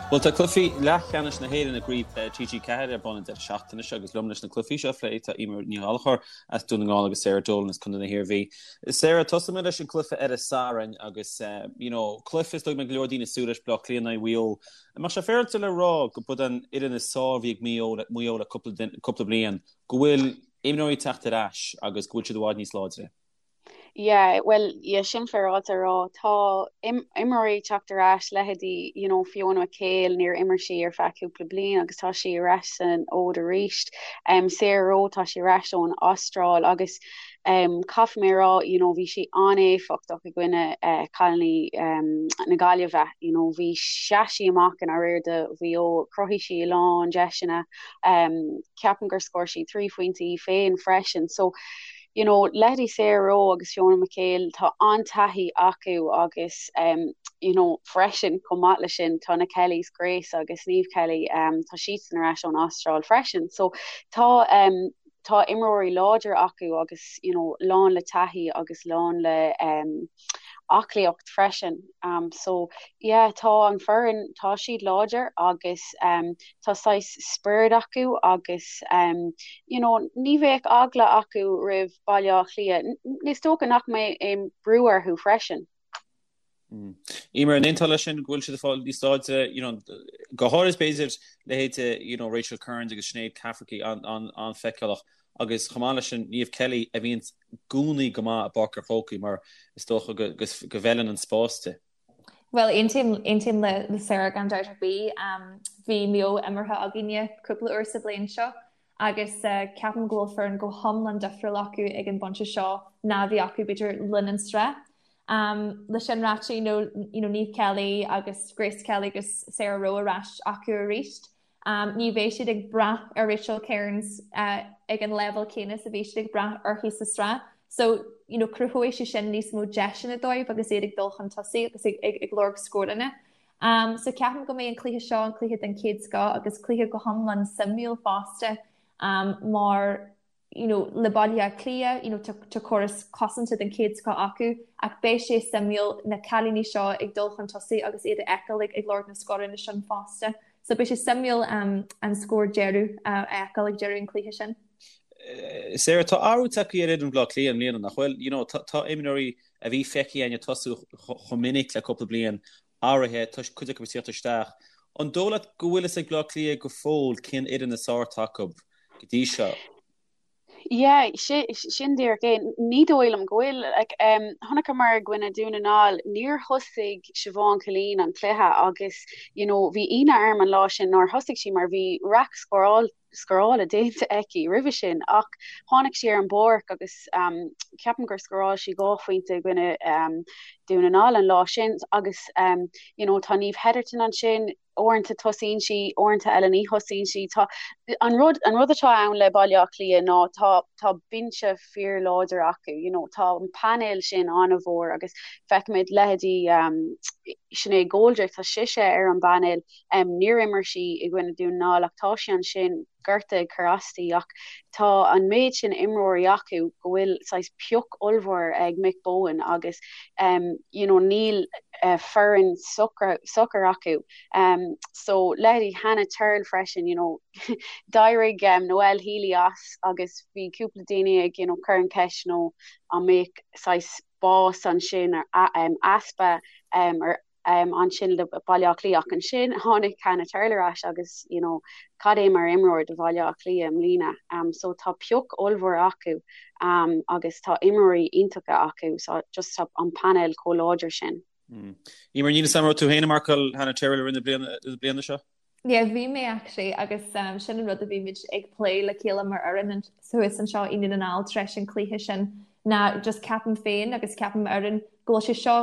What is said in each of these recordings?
Bhuel, tá cluichí leathcheannais na hÉireann i gCraobh Peile TG4 ar bun an deireadh seachtaine seo agus liom leis na cluichí seo a phlé tá Eimear Ní Ghallchóir as Dún na nGall agus Sarah Dolan as Contae na hIarmhí. Sarah, tosóidh mé leis an cluiche ar an Satharn agus you know, cluiche is dóigh go mbeidh go leor daoine ag súil leis, Baile Átha Cliath in aghaidh Mhaigh Eo. An mbeadh sé féaráilte le rá go b'd an fhoireann is fearr a bhí ag Maigh Eo le cúpla bliain, go bhfuil imreoirí ag teacht ar ais agus go bhfuil siad i bhfad níos láidre? Yeah, bhuel, yeah, sin féaráilte a rá. Tá imreoirí ag teacht ar ais, leithéidí, you know, Fiona McHale, níor imir sí ar feadh cúpla bliain agus tá sí ar ais san fhód arís. Um, Sarah Rowe, tá sí ar ais ón Astráil agus um, caithfidh mé a rá, you know, bhí sí an-éifeachtach i gcoinne uh, cailíní um, na Gaillimhe, you know, bhí sheas sí amach i ndáiríre do Mhaigh Eo, chruthaigh sí a lán deiseanna, um, ceapaim gur scór sí 3 phointe í féin freisin. So, you know, leithéidí Sarah Rowe agus Fiona McHale, tá an-taithí acu agus um, you know, freisin chomh maith leis sin tá na Kellys, Grace agus Niamh Kelly, um, tá siadsan ar ais ón Astráil freisin. So tá um, tá imreoirí láidir acu agus you know, lán le taithí agus lán le um, aclaíocht freisin. Um, so yeah, tá an foireann, tá siad láidir agus um, tá saghas spiorad acu agus um, you know, ní bheadh eagla acu roimh Baile Átha Cliath. Is dócha nach mbeidh aon brú orthu freisin. Mm. Eimear, an aontófá leis sin go bhfuil siad ag fáil níos láidre, you know, go háirid b'fhéidir leithéidí you know, Rachel Kearns agus Sinéad Cafferkey an-fheiceálach agus chomh maith leis sin Niamh Kelly a bhíonn i gcónaí go maith i bPáirc an Chrócaigh mar is dócha go go bhfeileann an spás di. Bhuel, aontaím le Sarah gan dabht ar bith. Bhí Maigh Eo imeartha againne cúpla uair sa bhliain seo agus ceapaim go bhfuil foireann go hiomlán difriúil acu ag an bpointe seo ná a bhí acu b'fhéidir le linn an sraith. Le sin ráite, you know, you know, Niamh Kelly agus Grace Kelly agus Sarah Rowe ar ais acu arís. Ní bheidh siad ag brath ar Rachel Kearns ag an leibhéal céanna is a bhí siad ag brath uirthi sa sraith. So, you know, cruthóidh sé sin níos mó deiseanna dóibh agus iad ag dul chun tosaigh agus ag, ag, ag lorg scóranna. Um, so ceapaim go mbeidh an cluiche seo an cluiche den chéad scoth agus cluiche go hiomlán suimiúil fosta um, mar you know, le Baile Átha Cliath, you know, tá, tá córas cosanta den chéad scoth acu ach beidh sé suimiúil na cailíní seo ag dul chun tosaigh agus iad a fheiceáil ag, ag lorg na scóranna sin fosta. So beidh sé suimiúil um, an scór deireadh uh, a fheiceáil ag deireadh an cluiche sin. Eh, Sarah, tá athrú tagtha ar fhoireann Bhaile Átha Cliath i mbliana nach bhfuil? You know, tá, tá imreoirí a bhí feicthe againn ag tosú chomh minic le cúpla bliain athraithe, tá cuid acu ag tíocht isteach. An dóigh leat go bhfuil fhios ag Bleá Cliath go fóill cén fhoireann is fearr atá acu go dtí seo? Yeah, sin díreach é. Ní dóigh liom go bhfuil. Like, um, chonaiceamar i gcoinne Dún na nGall, níor thosaigh Siobhán Killeen an cluiche agus, you know, bhí ionadh orm an lá sin nár thosaigh sí mar bhí raic scóráil scórála déanta aici roimhe sin ach tháinig sí ar an bpáirc agus ceapaim gur scóráil sí 2 phointe i gcoinne Dún na nGall an lá sin agus you know tá Niamh Hetherton ansin, uaireanta tosaíonn sí, uaireanta eile ní thosaíonn sí. Tá an rud an rud atá ann le Baile Átha Cliath ná tá tá binse fíorláidir acu, you know tá an painéal sin an-mhór agus feicimid leithéidí Sinéad Goldrick, tá sise ar an bpainéal Níor imir sí i gcoinne Dún na nGall ach tá sí ansin, gorta ag cur aisti ach tá an méid sin imreoirí acu go bhfuil saghas pioc ollmhór ag Mick Bohan agus you know níl foireann socair acu. So leithéidí Hannah Tyrrell freisin, you know d'éirigh Noelle Healy as agus bhí cúpla daoine ag you know cur an cheist you know an mbeadh saghas bás ansin easpa ar ansin le Baile Átha Cliath ach ansin tháinig Hannah Tyrrell ar ais agus you know cad é mar imreoir do Bhaile Átha Cliath i mbliana. Um, so tá pioc ollmhór acu um, agus tá imreoirí iontacha acu so just tá an painéal chomh láidir sin. Mm. Eimear, níl a fhios agam an raibh tú féin ag marcáil Hannah Tyrrell i rith na bliana, na bliana seo? Yeah, bhí mé actually agus um, sin an rud a bhí muid ag plé le chéile mar fhoireann thuas anseo i nDún na nGall tar éis an cluiche sin ná just ceapaim féin agus ceapaim fhoireann go bhfuil sé seo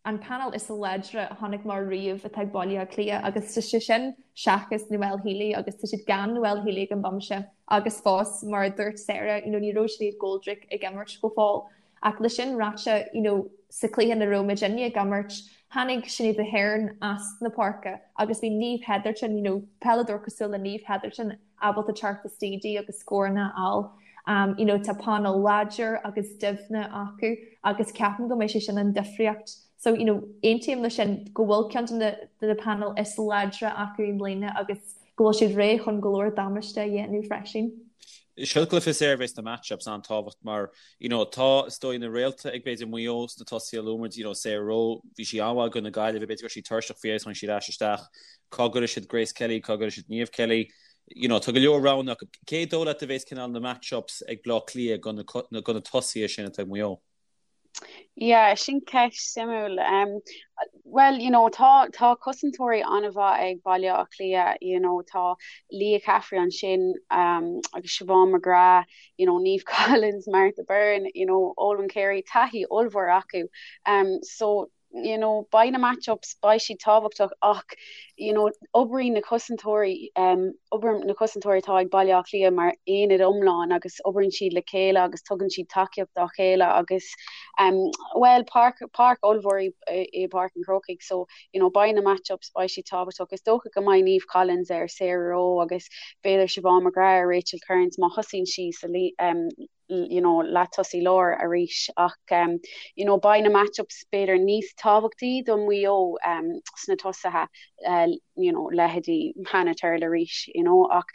an painéal is láidre a chonaic mé riamh atá ag Baile Átha Cliath agus tá sé sin seachas Noelle Healy agus tá siad gan Noelle Healy ag an bpointe agus fós mar a dúirt Sarah you know ní raibh Sinéad Goldrick ag imirt go fóill ach le sin ráite you know sa cluiche ina raibh muidinne ag imirt tháinig Sinéad Aherne as na páirce agus bhí Niamh Hetherton you know peileadóir cosúil le Niamh Hetherton ábalta teacht istigh di agus scóranna a fháil. Um, you know, tá painéal láidir agus doimhne acu agus ceapaim go mbeidh sé sin an difríocht. So, you know, aontaím leis sin go bhfuil ceann de na de na painéil is láidre acu i mbliana agus go bhfuil siad réidh chun go leor damáiste a dhéanamh freisin. Seo cluiche Sarah a bheas na match-ups an-tábhacht mar, you know, tá, is dóigh, na réalta ag b'fhéidir Maigh Eo sna tosaithe luaigh muid, you know, Sarah Rowe, bhí sí an-mhaith i gcoinne na Gaillimhe, b'fhéidir go raibh sí tuirseach faoi dheireadh tháinig sí ar ais isteach. Cá gcuirfidh siad Grace Kelly, cá gcuirfidh siad Niamh Kelly? You know, tá go leor roghanna acu. Cé dóigh leat a bheas cineál na match-ups ag Bleá Cliath do na, do na tosaithe sin atá ag Maigh Eo? Yeah, sin ceist suimiúil. Um, well, you know, tá, tá cosantóirí an-mhaith ag Baile Átha Cliath, you know, tá Leah Caffrey ansin um, agus Siobhán McGrath, you know, Niamh Collins, Martha Byrne, you know, Olwen Carey, taithí ollmhór acu. Um, so, you know, beidh na match-ups, beidh siad tábhachtach ach, you know, oibríonn na cosantóirí, um, oibríonn na cosantóirí atá ag Baile Átha Cliath mar aonad iomlán agus oibríonn siad le chéile agus tugann siad tacaíocht dá chéile agus, um, well, páirc, páirc ollmhór í, í Páirc an Chrócaigh so, you know, beidh na match-ups, beidh siad tábhachtach. Is dócha go mbeidh Niamh Collins ar Sarah Rowe agus b'fhéidir Siobhán McGrath ar Rachel Kearns má thosaíonn sí sa, um, you know, leath-tosaí láir arís ach um, you know, beidh na match-ups b'fhéidir níos tábhachtaí do Mhaigh Eo um, sna tosaithe uh, you know, leithéidí Hannah Tyrrell arís you know, ach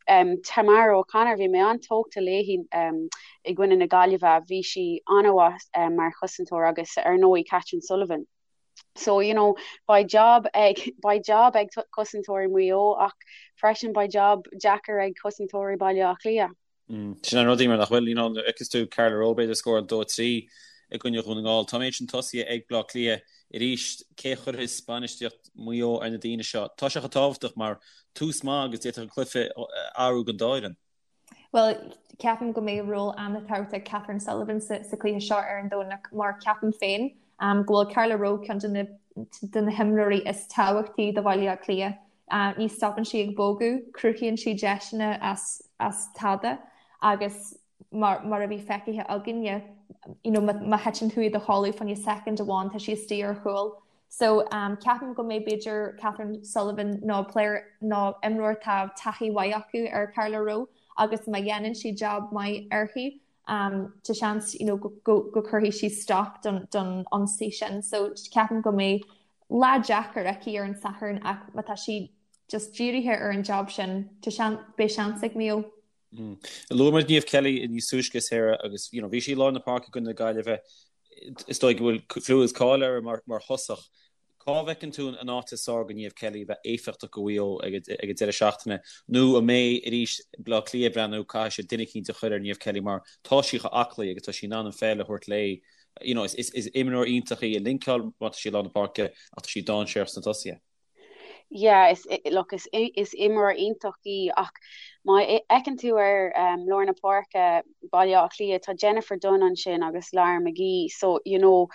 um, Tamara O'Connor bhí mé an-tógtha léi um, i gcoinne na Gaillimhe, bhí sí an-mhaith um, mar chosantóir agus ar ndóigh Catherine Sullivan. So, you know, beidh job ag, beidh job ag cosantóirí Mhaigh Eo ach freisin beidh job deacair ag cosantóirí Baile Átha Cliath. Sin an rud, Emer, nach bhfuil, you know, nuair a fheiceas tú Carla Rowe b'fhéidir scóráil 2, 3 i gcoinne Dhún na nGall. Tá an méid sin tosaithe ag Bleá Cliath arís. Cé a chuirfeas bainistíocht Mhaigh Eo ar na daoine seo? Tá sé chomh tábhachtach mar tús maith agus d'fhéadfadh an cluiche a athrú don dá fhoireann. Bhuel, ceapaim go mbeidh ról an-tábhachtach ag Catherine Sullivan sa chluiche seo ar an Domhnach mar ceapaim féin go bhfuil Carla Rowe ceann de na de na himreoirí is tábhachtaí do Bhaile Átha Cliath. Ní stopann sí ag bogadh, cruthaíonn sí deiseanna as as tada agus mar mar a bhí feicthe againne, you know, má thiteann tú i do chodladh fá choinne soicind amháin tá sí istigh ar chúl. So ceapaim go mbeidh b'fhéidir Catherine Sullivan nó player nó imreoir atá taithí mhaith acu ar Carla Rowe agus má dhéanann sí jab maith uirthi tá seans you know, go, go, go cuirfidh sí stop don, don ionsaí sin. So ceapaim go mbeidh lá deacair aici ar an Satharn ach má tá sí just dírithe ar an job sin, tá sean, beidh seans ag Maigh Eo. Mm. Luaigh muid Niamh Kelly níos túisce Sarah agus you know, bhí sí i lár na páirce i gcoinne na Gaillimhe is dóigh go bhfuil clú is cáil uirthi mar, mar thosach. Cá bhfeiceann tú an áit is fearr do Niamh Kelly a bheith éifeachtach do Mhaigh Eo ag an deireadh seachtaine nó an mbeidh arís Bleá Cliath ag breathnú caithfidh siad duine eicínt a chur ar Niamh Kelly mar tá sí chomh aclaí agus tá sí in ann an pheil a thabhairt léi. You know, is, is, is imreoir iontach í ag linceáil má tá sí i lár na páirce ach tá sí dainséarach sna tosaithe. Yeah, is, look, is, is imreoir iontach í ach má fheiceann tú ar um, lár na páirce Baile Átha Cliath, tá Jennifer Dunne ansin agus Lara McGee, so, you know,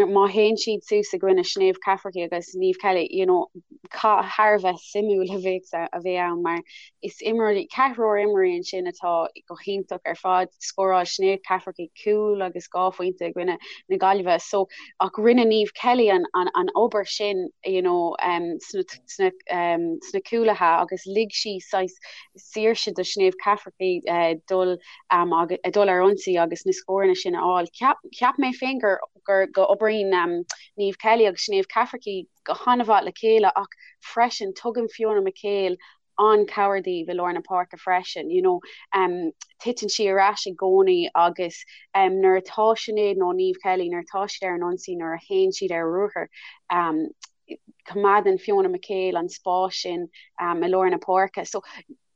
má théann siad suas i gcoinne Sinéad Cafferkey agus Niamh Kelly, you know, cath thar a bheith suimiúil a bheidh a bheidh ann mar is imreoirí, ceathrar imreoirí ansin atá go hiontach ar fad. Scóráil Sinéad Cafferkey cúl agus 2 phointe i gcoinne na Gaillimhe so ach rinne Niamh Kelly an, an, an obair sin you know, um, sna, sna, um, sna cúlaithe agus lig sí saghas saoirse do Sinéad Cafferkey uh, dul, um, agus, dul ar ionsaí agus na scóranna sin a fháil. Cheap, cheap mé féin gur, gur go oibríonn um, Niamh Kelly agus Sinéad Cafferkey go han-mhaith le chéile ach freisin tugann Fiona McHale an-chabhair daoibh i lár na páirce freisin, you know, um, titeann sí ar ais i gcónaí agus um, nuair atá Sinéad nó Niamh Kelly, nuair atá siad ar an ionsaí, nuair a théann siad ar ruathar, um, coimeádann Fiona McHale an spás sin um, i lár na páirce. So,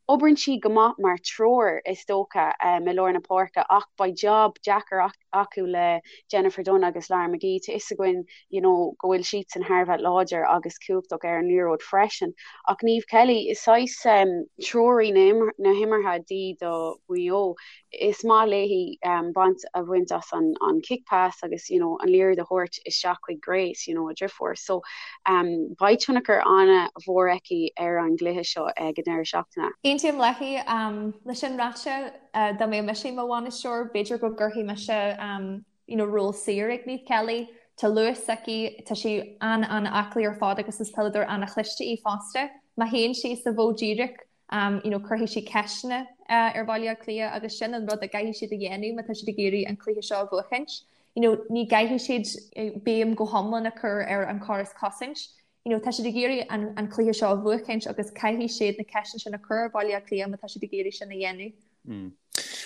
oibríonn sí go maith mar triúr is dócha um, i lár na páirce ach beidh job deacair acu le Jennifer Dunne agus Lara McGee. Tá fhios againn you know, go bhfuil siadsan thar a bheith láidir agus cumhachtach ar an liathróid freisin. Ach Niamh Kelly, is saghas um, treoraí na, na himeartha di do Mhaigh Eo. Is maith léi um, baint a bhaint as an, an kick pass agus you know, an liathróid a thabhairt isteach chuig Grace, you know, a driofúr. So um, beidh tionchar an-mhór aici ar an gcluiche seo ag an deireadh seachtaine. Aontaím léi um, leis sin ráite uh, dá mbeadh mise i mo bhainisteoir, b'fhéidir go gcuirfidh mise um, you know, ról saor ag Niamh Kelly. Tá luas aici, tá sí an-an-aclaí ar fad agus is peileadóir an-chliste í fosta. Má théann sí sa mhodh díreach, um, you know, cuirfidh sí ceisteanna uh, ar Bhaile Átha Cliath agus sin an rud a gcaithfidh siad a dhéanamh má tá siad ag iarraidh an cluiche seo a bhuachaint. You know, ní gcaithfidh siad béim go hiomlán a chur ar an chóras cosaint. You know, tá siad ag iarraidh an, an cluiche seo a bhuachaint agus caithfidh siad na ceisteanna sin a chur ar Bhaile Átha Cliath má tá siad ag iarraidh sin a dhéanamh. Mm.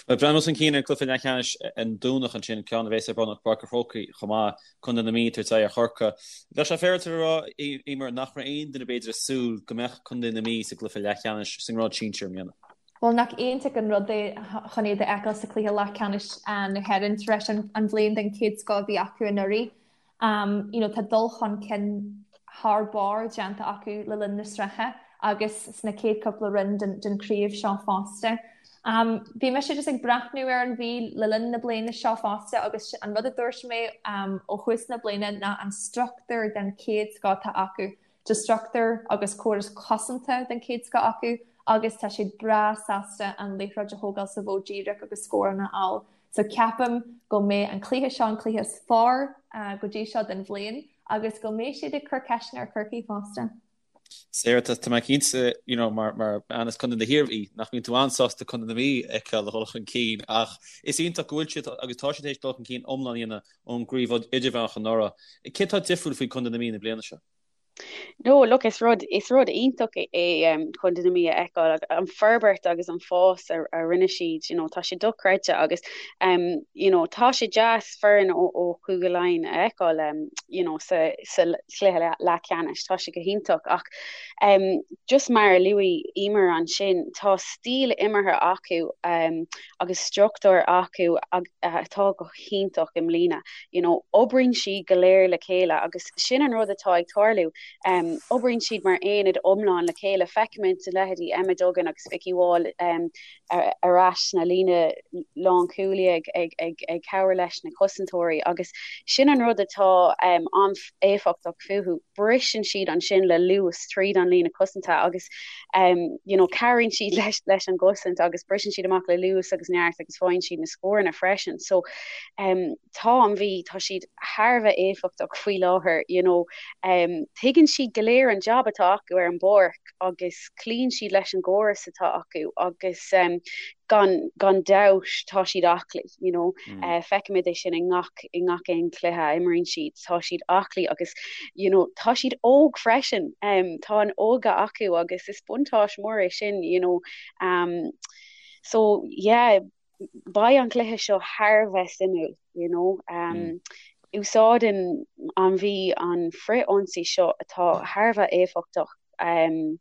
Bhuel, breathnú chun cinn ar an cluiche leathcheannais an Domhnach ansin, ceann a bheas ar bun i bPáirc an Chrócaigh chomh maith, Contae na Mí ag tabhairt aghaidh ar Chorcaigh. Bheadh sé féaráilte a rá, Eimear, nach raibh aon duine b'fhéidir ag súil go mbeadh Contae na Mí sa gcluiche leathcheannais sa ngrád sinsir i mbliana. Bhuel, nach iontach an rud é chun iad a fheiceáil sa chluiche leathcheannais na hÉireann tar éis an bhliain den chéad scoth a bhí acu anuraidh. You know, tá dul chun cinn thar barr déanta acu le linn na sraithe agus sna chéad cúpla roinn den chraobh seo fosta. Bhí mise just ag breathnú ar an Mhí le linn na bliana seo fosta agus an rud a dúirt mé ó thús na bliana ná an struchtúr den chéad scoth atá acu. Tá struchtúr agus córas cosanta den chéad scoth acu agus tá siad breá sásta an liathróid a thógáil sa mhodh díreach agus scóranna a fháil. So ceapaim go mbeidh an cluiche seo an cluiche is fearr go dtí seo den bhliain agus go mbeidh siad ag cur ceisteanna ar Chorcaigh fosta. Sarah, tá mé cinnte, you know, mar mar bean as Contae na hIarmhí, nach mbíonn tú an-sásta Contae na Mí a fheiceáil ag dul chun cinn ach is iontach go bhfuil siad agus tá siad tar éis dul chun cinn iomlán a dhéanamh ón gcraobh idirmheánach anuraidh. Cé tá difriúil faoi Contae na Mí na bliana seo? No, look, is rud, is rud iontach é um, Contae na Mí a fheiceáil, an forbairt agus an fás a, a rinne siad, you know, tá sé dochreidte agus um, you know, tá sé deas foireann ó, ó Chúige Laighean a fheiceáil um, you know, sa, sa chluiche leathcheannais, tá sé go hiontach ach um, just mar a luaigh Eimear ansin, tá stíl imeartha acu um, agus struchtúr acu atá go hiontach i mbliana. You know, oibríonn siad go léir le chéile agus sin an rud atá ag tarlú. Um, oibríonn siad mar aonad iomlán le chéile. Feicimid a leithéidí Emma Duggan agus Vikki Wall um, ar, ar ais sna líne lánchúlaí ag, ag, ag, ag cabhair leis na cosantóirí agus sin an rud atá um, an-éifeachtach fúthu. Briseann siad ansin le luas tríd an líne cosanta agus um, you know, cabhraíonn siad leis, leis an gcosaint agus briseann siad amach le luas agus neart agus faigheann siad na scóranna freisin. So um, tá an Mhí, tá siad thar a bheith éifeachtach faoi láthair, you know, um, tuigeann siad go léir an job atá acu ar an bpáirc agus cloíonn siad leis an gcóras atá acu agus um, gan, gan dabht tá siad aclaí, you know, mm. uh, feicimid é sin i ngach, i ngach aon chluiche a imríonn siad, tá siad aclaí agus you know, tá siad óg freisin, um, tá an óige acu agus is buntáiste mór é sin, you know, um, so yeah, beidh an cluiche seo thar a bheith suimiúil, you know. Um, mm. Úsáideann an Mhí an frith-ionsaí seo atá thar a bheith éifeachtach um,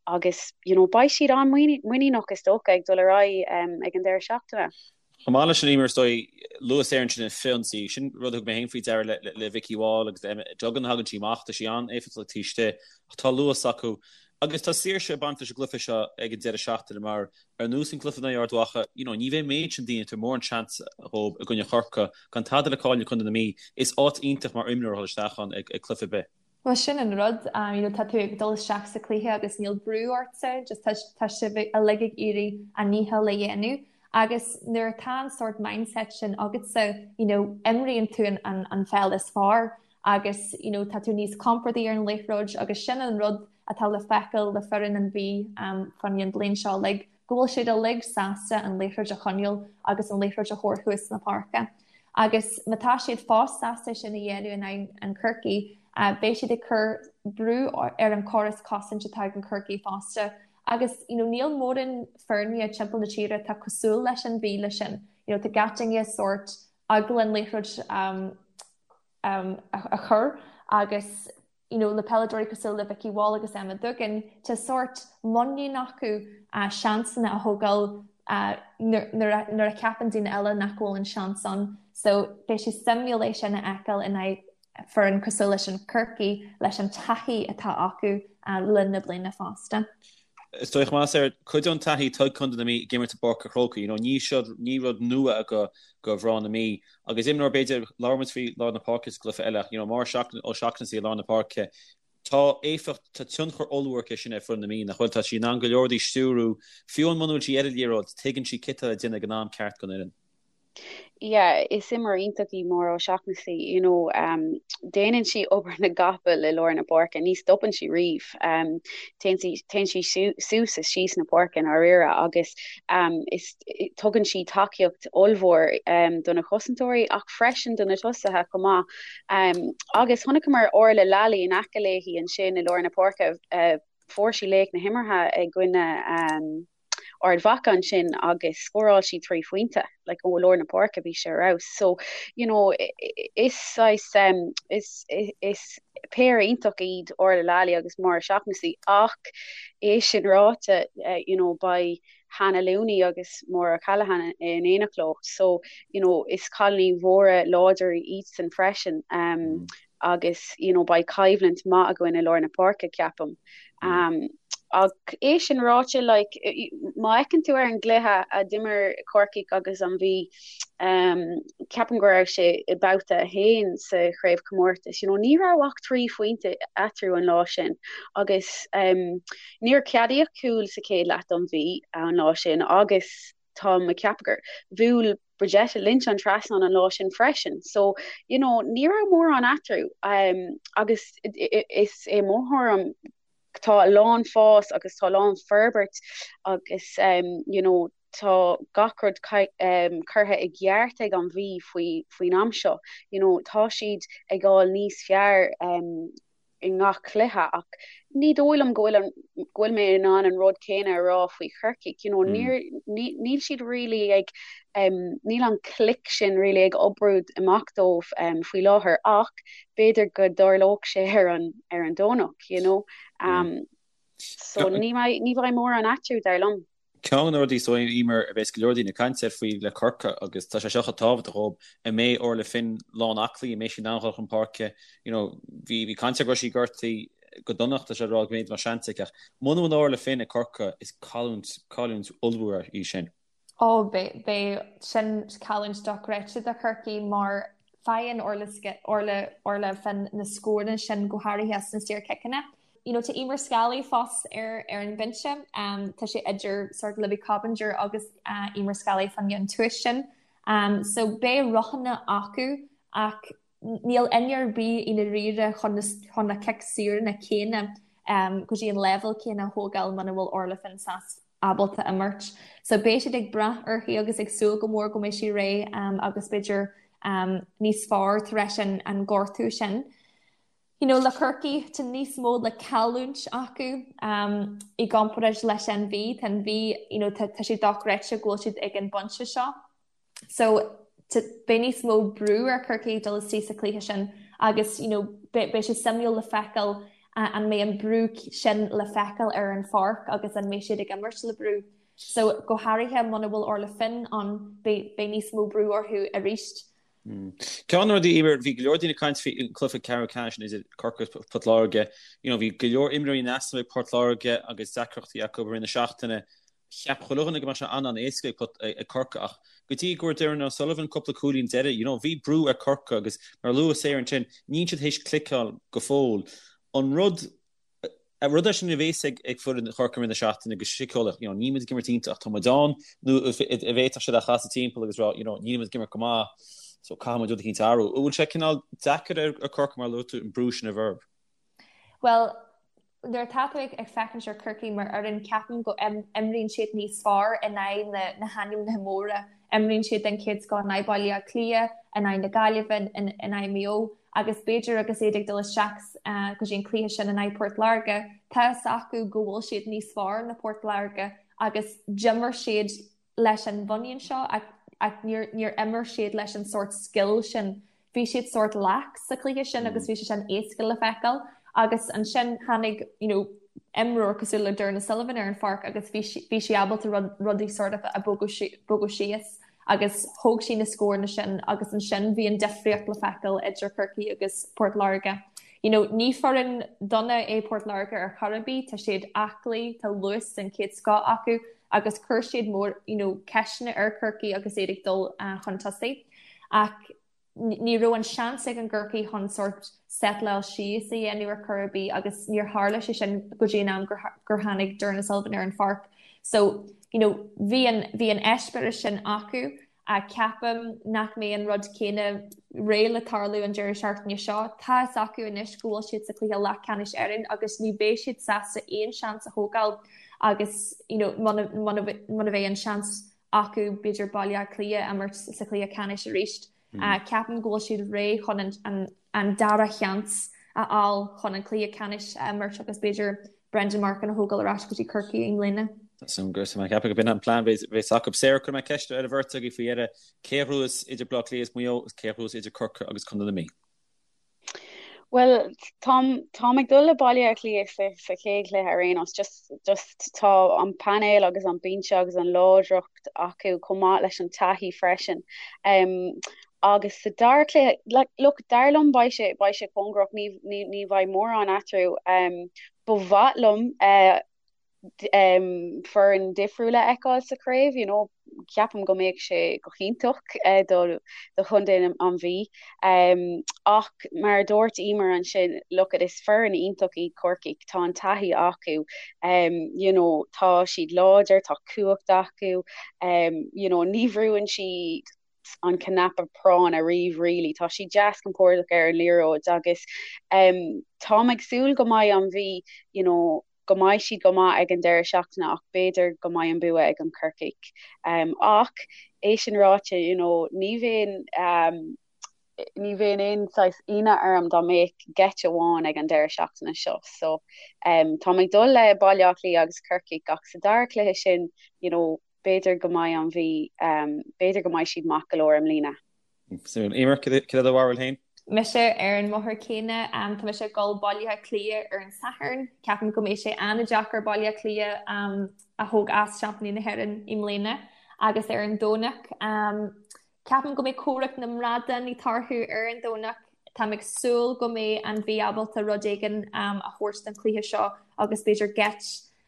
agus you know, beidh siad an-mhuiníneach is dócha ag dul ar aghaidh um, ag an deireadh seachtaine. Chomh maith leis sin Eimear is dóigh, luaigh Sarah ansin an frith-ionsaí, sin rud a thug mé féin faoi deara le, le, le Vikki Wall agus Emma Duggan a thagann sí amach, tá sí an-éifeachtach taobh istigh ach tá luas acu. Agus tá saoirse ag baint leis an gcluiche seo ag an deireadh seachtaine mar Ar nós an cluiche in aghaidh Ard Mhacha, you know, ní bheidh an méid sin daoine ag tabhairt mórán seans dhóibh i gcoinne Chorcaí, gan tada le cailleadh ag Contae na Mí. Is áit iontach mar imreoir a dhul isteach ann ag cluiche ar bith. Bhuel sin an rud, you know, tá tú ag dul isteach sa chluiche agus níl brú ortsa, just tá, tá sibh uilig ag iarraidh a ndícheall a dhéanamh agus nuair atá an sórt mindset sin agatsa, you know, imríonn tú an, an, an pheil is fearr agus, you know, tá tú níos compordaí ar an liathróid agus sin an rud atá le feiceáil le foireann an Mhí fán an bhliain seo uilig, go bhfuil siad uilig sásta an liathróid a choinneáil agus an liathróid a thabhairt thuas na páirce. Agus má tá siad fós sásta sin a dhéanamh in aghaidh an Chorcaí, beidh siad ag cur brú ar an chóras cosaint atá ag an Chorcaí fosta. Agus you know, níl mórán foirne timpeall na tíre atá cosúil leis an Mhí le sin. You know, tá gach duine sórt eagla an liathróid um, um, a, a chur agus you know, le peileadóirí cosúil le Vikki Wall agus Emma Duggan, tá sórt muinín acu uh, seansanna a thógáil uh, nuair a cheapann daoine eile nach bhfuil an seans ann. So beidh sé suimiúil é sin a fheiceáil in aghaidh foireann cosúil leis an Chorcaí leis an taithí atá acu uh, le linn na bliana fosta. Is dóigh más ar cuid den taithí atá ag Contae na Mí ag imirt i bPáirc an Chrócaigh, you know, ní seo ní rud nua do do mhná na Mí agus imreoir b'fhéidir labhair muid faoi lár na páirce sa gcluiche eile ach you know, Máire O'Shaughnessy i lár na páirce tá éifeacht tá tionchar ollmhór aici sin ar foireann na Mí nach bhfuil tá sí in ann go leor rudaí a stiúrú fiú amháin muna bhfuil sí ar an liathróid tuigeann sí céard atá le déanamh ag an am ceart don fhoireann. Yeah, is imreoir iontach í Máire O'Shaughnessy, you know, um, déanann sí obair na gcapall i lár na páirce, ní stopann sí riamh. Um, téann sí, téann sí suas is síos na páirce i ndáiríre agus um, is, tugann sí tacaíocht ollmhór um, do na cosantóirí ach freisin do na tosaithe chomh maith. Um, agus chonaiceamar Orla Lally in aice léi ansin i lár na páirce, uh, fuair sí laoch na himeartha i gcoinne um, Ard Mhacha ansin agus scóráil sí 3 phointe like ó lár na páirce bhí sé ar fheabhas. So you know is saghas um, is is péire iontach iad Orla Lally agus Máire O'Shaughnessy ach é sin ráite uh, you know beidh Hannah Looney agus Maura O'Callaghan in éineacht leo. So you know is cailíní mhóra láidir iadsan freisin. Um, mm. agus you know beidh coimhlint maith againn i lár na páirce ceapaim. Um, ach é sin ráite like, má fhéachann tú ar an gcluiche a d'imir Corcaigh agus an Mhí um, ceapaim go raibh sé i babhta 1 sa chraobhchomórtas you know, ní raibh ach 3 phointe eatarthu an lá sin agus um, níor ceadaíodh cúl sa chéad leath don Mhí an lá sin agus tá mé ag ceapadh gur bhuail Bridgette Lynch an trasnán an lá sin freisin. So, you know, ní raibh mórán eatarthu um, agus is é mo thuairim tá a lán fás agus tá a lán forbairt agus um, you know, tá gach rud um, curtha i gceart ag an Mhí faoi faoin am seo. You know, tá siad ag dul níos fearr um, i ngach cluiche ach ní dóigh liom go bhfuil an go bhfuil mé in ann an rud céanna a rá faoi Chorcaigh you know níor níl siad really ag um, níl an click sin really ag oibriú amach dóibh um, faoi láthair ach b'fhéidir go dtarlódh sé ar an ar an Domhnach you know um, so ní ní bheidh mórán eatarthu dar liom. Ceann de na rudaí so Eimear a bheas go leor daoine ag caint air faoi le Corcaigh agus tá sé seo chomh tábhachtach dhóibh, an mbeidh Orla Finn lán aclaí, an mbeidh sí in ann dhul chun páirce, you know, bhí bhí caint air go raibh sí gortaithe go dona tá sé ag rá go mb'fhéidir go mbeadh seans aici ach muna bhfuil Orla Finn ag Corcaigh is cailliúint cailliúint ollmhór í sin. Ó beidh beidh sin cailliúint dochreidte do Chorcaigh mar faigheann Orla Orla Orla Finn na scóranna sin go háirithe as na saorchiceanna. You know, tá Eimear Scally fós ar ar an bhinse. Um, tá sé idir sort Libby Coppinger agus uh, Eimear Scally fán gceann tuaithe sin. Um, so beidh roghanna acu ach níl duine ar bith i ndáiríre chun na, chun na cic saoranna céanna um, go dtí an leibhéal céanna a thógáil muna bhfuil Orla Finn sásta ábalta imirt. So beidh siad ag brath uirthi agus ag súil go mór go mbeidh sí réidh um, agus b'fhéidir um, níos fearr tar éis an, an gortú sin. You know, le Corcaigh, tá níos mó le cailliúint acu um, i gcomparáid leis an Mhí. Tá an Mhí, you know, tá, tá sé dochreidte go bhfuil siad ag an bpointe seo. So, beidh níos mó brú ar Chorcaigh dul isteach sa chluiche sin agus, you know, beidh, beidh sé suimiúil le feiceáil uh, an mbeidh an brú sin le feiceáil ar an pháirc agus an mbeidh siad ag imirt le brú. So, go háirithe muna bhfuil Orla Finn ann, beidh, beidh níos mó brú orthu arís. Ceann de na rudaí, Eimear, bhí go leor daoine ag caint faoi an cluiche ceathrú ceannais idir Corcaigh agus Port Láirge. You know, bhí go leor imreoirí in easnamh ag Port Láirge agus deacrachtaí acu i rith na seachtaine. Cheap chuile dhuine go mbeadh sé an-an-éasca ag Corcaigh ach go dtí go bhfuair Doireann O'Sullivan cúpla cúilín deiridh, you know, bhí brú ar Corcaigh agus mar a luaigh Sarah ansin, níl siad théis cliceáil go fóill. An rud An rud é sin a bhéas ag foireann Chorcaí i rith na seachtaine go síceolaíoch, you know, níl muid ag imirt iontach ach tá muid ann, nó an bhféadfadh siad é a chasadh timpeall agus rá, you know, níl muid ag imirt go maith so caithfidh muid rud eicínt a athrú. An bhfuil sé cineál deacair ar Chorcaigh mar a luaigh tú an brú sin a bheith orthu? Bhuel, nuair atá tú ag féachaint ar Chorcaigh mar fhoireann, ceapaim go imríonn siad níos fearr in aghaidh na hainmnithe móra. Imríonn siad den chéad scoth in aghaidh Baile Átha Cliath, in aghaidh na Gaillimhe, in aghaidh Maigh Eo agus b'fhéidir agus iad ag dul isteach go dtí an cluiche sin in aghaidh Port Láirge, tá fhios acu go bhfuil siad níos fearr ná Port Láirge agus d'imir siad leis an mhuinín seo ach níor níor imir siad leis an sórt scil sin. Bhí siad sórt lax sa chluiche sin agus bhí sé sin éasca le feiceáil agus ansin tháinig you know, imreoir cosúil le Doireann O'Sullivan ar an pháirc agus bhí bhí sí ábalta rudaí sort of a bogadh síos agus thóg sí na scóranna sin agus ansin bhí an difríocht le feiceáil idir Corcaigh agus Port Láirge. You know, ní foireann dona é Port Láirge ar chor ar bith, tá siad aclaí, tá luas den chéad scoth acu agus chuir siad mór you know, ceisteanna ar Chorcaigh agus iad ag dul uh, chun tosaigh. Ach ní raibh an seans ag an gCorcaigh chun sórt settleáil síos a dhéanamh ar chor ar bith agus níor tharla sé sin go dtí an am gur, gur tháinig Doireann O'Sullivan ar an pháirc. So, you know, bhí an, bhí an eispéireas sin acu. Ceapaim nach mbeidh an rud céanna réidh le tarlú an deireadh seachtaine seo. Tá fhios acu anois go bhfuil siad sa chluiche leathcheannais Éireann agus ní bheidh siad sásta aon seans a thógáil agus you know muna muna mbeidh an seans acu b'fhéidir Baile Átha Cliath a imirt sa chluiche ceannais arís. Ceapaim go bhfuil siad réidh chun an an dara sheans a fháil chun an cluiche ceannais a imirt agus b'fhéidir Brendan Martin a thógáil ar ais go dtí Corcaigh i mbliana. Súil agam mé ceapadh go b'in an plean bheas acu. Sarah, cuirfidh mé ceist ar an bheirt agaibh faoi dheireadh. Cé a ghnóthós idir Baile Átha Cliath is Maigh Eo agus cé a ghnóthós idir Corcaigh agus Contae na Mí? Bhuel, táim, táim ag dul le Baile Átha Cliath sa, sa chéad chluiche ar aon nós. Just, just tá an painéal agus an binse agus an láidreacht acu chomh maith leis an taithí freisin. Um, agus sa dara cluiche, like, look, dar liom beidh sé, beidh sé cóngarach, ní, ní, ní bheidh mórán eatarthu. Um, ba mhaith liom uh, foireann difriúil a fheiceáil sa chraobh, you know, ceapaim go mbeadh sé go hiontach do do chontae an Mhí. Ach mar a dúirt Emer ansin, look it, is foireann iontach iad Corcaigh, tá an taithí acu, you know, tá siad láidir, tá cumhacht acu, you know, ní bhrúann siad an cnaipe práinn ariamh really. Tá siad deas compordach ar an liathróid agus táim ag súil go mbeidh an Mhí, you know, go mbeidh siad go maith ag an deireadh seachtaine ach b'fhéidir go mbeidh an bua ag an Corcaigh. Ach é sin ráite, you know, ní bheinn ní bheinn aon saghas ionadh orm dá mbeadh geit amháin ag an deireadh seachtaine seo. So táim ag dul le Baile Átha Cliath agus Corcaigh ach sa dara cluiche sin, you know, b'fhéidir go mbeidh an Mhí, b'fhéidir go mbeidh siad maith go leor i mbliana. Suimiúil. Emer, cad é do bharúil féin? Mise ar an mbóthar céanna. Tá mise ag dul Baile Átha Cliath ar an Satharn. Ceapaim go mbeidh sé an-deacair Baile Átha Cliath a thóg as seaimpíní na hÉireann i mbliana. Agus ar an Domhnach, ceapaim go mbeidh comhrac na mbradán ag tarlú ar an Domhnach. Táim ag súil go mbeidh an Mhí ábalta rud éigin a thabhairt don chluiche seo agus b'fhéidir geit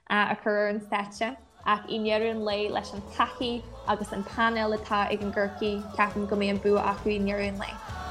a chur ar an stáitse, ach i ndeireadh an lae, leis an taithí agus an painéal atá ag an gCorcaigh, ceapaim go mbeidh an bua acu i ndeireadh an lae.